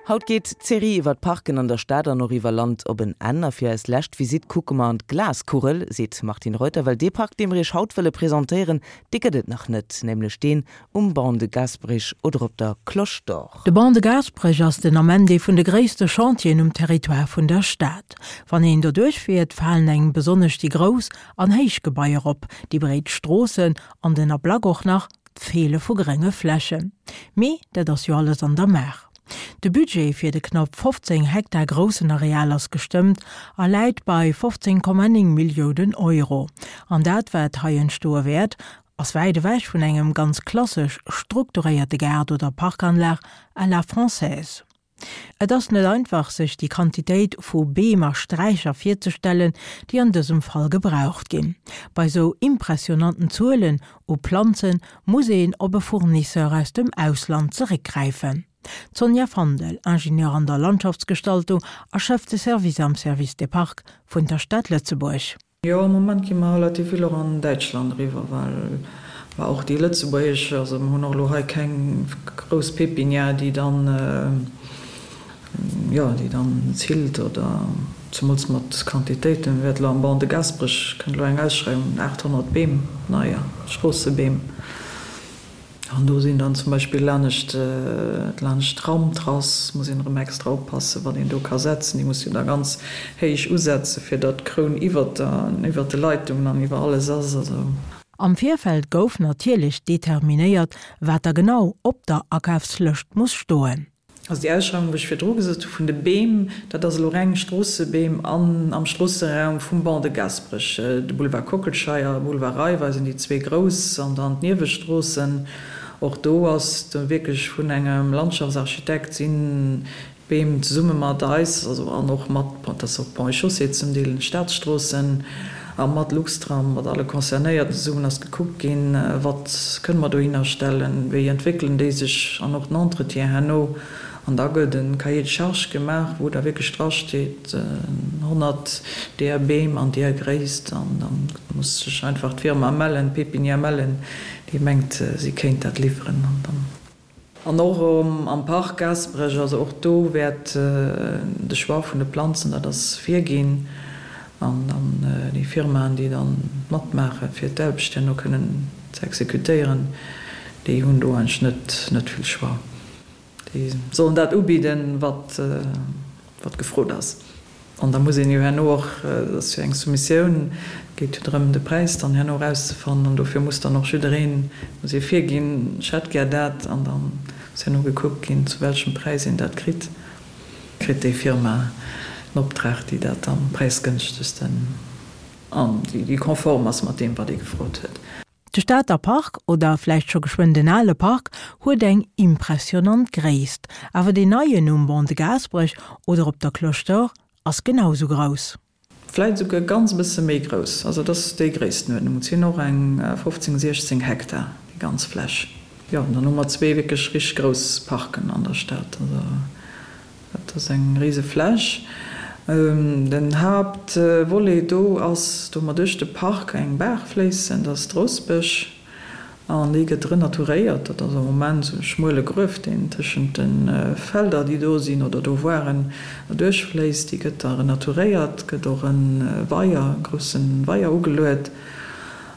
Haut geet d'Serie iwwer d'Parken an der Stad an och iwwer Land op en Enn. A fir eis lescht Visitt kucke mer an d'Glaskugel, seet d'Martine Reuter, well dee Park, dee mer iech haut wëlle presentéieren, dee gëtt et nach net, nämlech deen um Ban de Gasperich oder op der Cloche d'Or. De Ban de Gasperech ass den Ament ee vun de gréisste Chantieren um Territoire vun der Stad. Wann een doduerch fiert, falen engem besonnesch déi grouss an héich Gebaier op, déi breet Stroossen an den Ablack och nach d'Feele vu grénge Flächen. Mee dat ass jo alles an der Maach. De Budget fir de knapp 15 Hektar groussen Areal ass gestëmmt a läit bei 15,9 Milliounen Euro. An dat, wat hei entstoe wäert, ass wäit ewech vun engem ganz klassesch strukturéierte Gaart oder Parkanlag à la française. Et ass net einfach, sech déi Quantitéit vu Beem a Sträicher virzestellen, déi an dësem Fall gebraucht ginn. Bei sou impressionanten Zuelen u Planze muss een op e Fournisseur aus dem Ausland zeréckgräifen. D'Sonja Fandel, Ingenieur an der Landschaftsgestaltung a Chef de Service am Service des Parcs vun der Stad Lëtzebuerg. Jo, am Moment gi mer relativ vill och an Däitschland eriwwer, well mer och déi lëtzebuergesch, also mer hunn och elo hei keng grouss Pépinière, déi dann, jo, déi dann zillt oder zemools mat Quantitéiten. Wäert elo am Ban de Gaasperech kënnt elo eng Ausschreiwung, 800 Beem, neier Stroossebeem. An do sinn dann zum Beispill laanescht, laanescht d'Tramtrass muss een erëm extra oppassen, wat een do ka setzen. Déi muss jo da ganz héich usetzen, fir datt d'Kroun iwwert der, iwwert de Leitungen an iwwer alles ass. Also. Am Virfeld gouf natierlech determinéiert, wat da genau op der Akafslëscht muss stoen. Also déi Ausschreiwung, wou ech virdru gesot hu vun de Beem, dat ass elo reng Stroossebeem an am Stroosseraum vum Ban de Gasperech. De Boulevard Kockelscheier, Boulevard Raiffeisen, déi zwee grouss an dann d'Niewestroossen. Och do ass do wierklech vun engem Landschaftsarchitekt sinn d'Beem zesumme mat eis, also an och mat, dat ass och Ponts et Chaussées zum Deel, Staatsstroossen, a mat Luxtram, mat alle Concernéierten zesummen ass gekuckt ginn, wat kënne mer dohinner stellen, wéi entwéckelen déi sech an och den Entretien herno. An da gëtt e Cahier de charges gemaach, wou da wierklech drasteet, 100 deeër Beem an deeër Gréisst. An da muss sech einfach d'Firma mellen, d'Pépinière mellen, déi mengt, si kéint dat liwweren. An dann. An och am Park Gaasperech, also och do wäert de Choix vun de Planzen, dat ass virginn. An dann déi Firmaen, déi dann matmaache fir d'Aarbecht herno kënnen ze exekutéieren, déi hunn do eigentlech net net vill Choix. Déi sollen dat ubidden, wat wat gefrot ass. An da muss een jo herno och, dat ass jo eng Soumissioun, et geet jo drëm, de Präis dann herno erauszefannen, an dofir muss dann och jiddereen, muss ee virginn, ech hätt gär dat, an da muss herno gekuckt ginn, zu welchem Präis een dat kritt. Kritt déi Firma den Optrag, déi dat am präisgënschtegsten an déi konform ass mat deem, wat ee gefrot huet. De Stater Park, oder vläicht scho geschwënn den ale Park, huet eng impressionant Gréisst. Awer deen neien um Ban de Gaasperech oder op der Cloche d'Or ass genau sou grouss. Vläicht esouguer ganz e bësse méi grouss. Also et ass déi Gréisstenuerdnung. Et sinn och eng 15, 16 Hektar, déi ganz Fläch. Jo, an dann hu mer zwee wierklech richteg grouss Parken an der Stad. Also Dat ass eng rise Fläch. Den Haaptvolet do ass, do mer duerch de Park eng Baach fléissen, dat ass d'Rossbech, an déi gëtt renaturéiert. Dat ass am Moment esou e schmuele Gruef, deen tëschent de Felder, déi do sinn oder do waren, erduerchfléisst. Déi gëtt da renaturéiert, gëtt och e Weier, e grousse Weier ugeluet.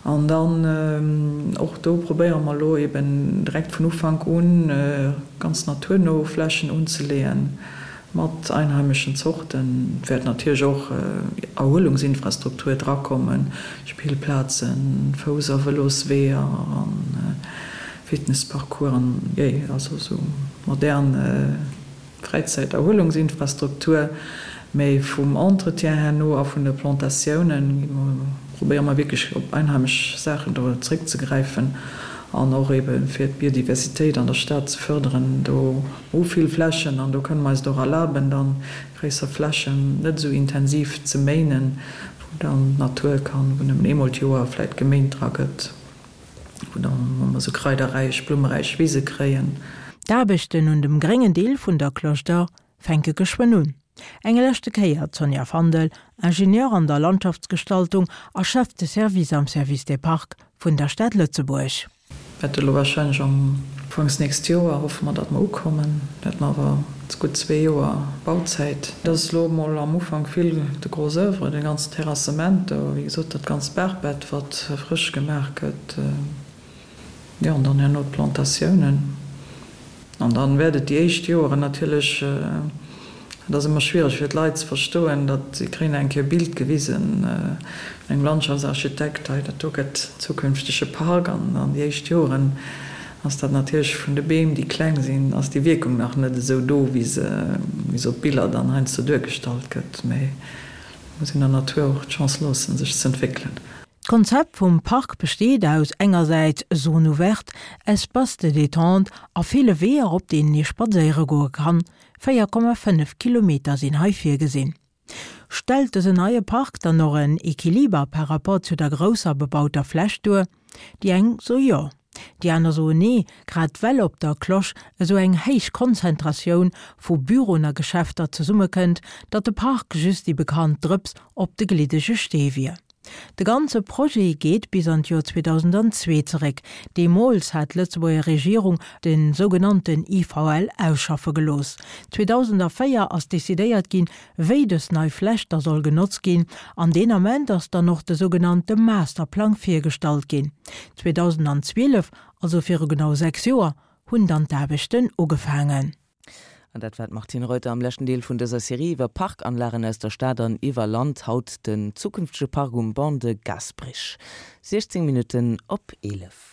An dann och do probéiere mer elo eben direkt vun Ufank un ganz naturno Flächen unzeleeën mat einheimeschen Zorten. Et wäert natierlech och Erhuelungsinfrastruktur drakommen, Spillplazen, Fouss a Vëlosweeër a Fitnessparcoursen, jee, also esou modern Fräizäit-Erhuelungsinfrastruktur, mee vum Entretien herno a vun de Plantatiounen probéiere mer wierklech op einheimesch Saachen do zréckzegräifen an och ebe fir d'Biodiversitéit an der Stad ze fërderen. Do hu vill Flächen an do kënne mer eis et och erlaben, dann gréisser Flächen net esou intensiv ze méinen, wou dann d'Natur kann, wou nëmmen eemol d'Joer vläit geméint dra gëtt. Wou dann wou mer sou kraiderräich, blummeräich Wise kréien. D'Aarbechten un dem gréngen Deel vun der Cloche d'Or fänke geschwënn un. Eng leschte Kéier d'Sonja Fandel, Ingenieur an der Landschaftsgestaltung a Chef de Service am Service des Parcs vun der Stad Lëtzebuerg. Wäerte elo warscheinlech am Ufanks nächst Joer, hoffe mer, datt mer ukommen. Wäerte mer awer gutt zwee Joer Bauzäit. Et ass elo emol am Ufank vill de Gros oeuvre, de ganzen Terrassement do, wéi gesot, dat ganzt Baachbett, wat frësch gemaach gëtt. Jo, an dann herno d'Plantatiounen. An dann wäert et déi éischt Joeren natierlech, dat ass ëmmer schwiereg fir d'Leit ze verstoen, datt si kréien eng Kéier e Bild gewisen vun engem Landschaftsarchitekt, hei dat do gëtt zukünftege Park. An dann déi éischt Joeren ass dat natierlech vun de Beem, déi kleng sinn, ass déi Wierkung nach net esou do, wéi se wéi se op Biller dann heiansdo duergestallt gëtt. Mee et muss een der Natur och d'Chance loossen, sech z'entwéckelen. D'Konzept vum Park besteet aus engersäits Zone ouverte, Espaces de détente a ville Weeër op deenen ee spadséiere goe kann. 4,5 Kilometer sinn hei virgesinn. Stellt dësen neie Park dann och en Equiliber par rapport zu der grousser bebauter Fläch duer? Déi eng soe jo, déi aner soen nee, grad well op der Cloche esou eng héich Konzentratioun vu Büroen a Geschäfter zesummekënnt, datt de Park just déi bekannt Drëps op de gliddege Stee wier. De ganze Projet geet bis an d'Joer 2002 zeréck. Deemools hat d'Lëtzebuerger Regierung de sougenannten IVL ausschaffe gelooss. 2004 ass decidéiert ginn, wéi dës nei Fläch da soll genotzt ginn, an deen Ament ass dann och de sougenannte Masterplang virgestallt ginn. 2012, also viru genau 6 Joer, hunn dann d'Aarbechten ugefaangen. An dat war d'Martine Reuter am leschten Deel vun dëser Serie iwwer Parkanlagen aus der Stad an iwwer Land. Haut den zukünftege Park um Ban de Gasperich. 16 Minutten op 11.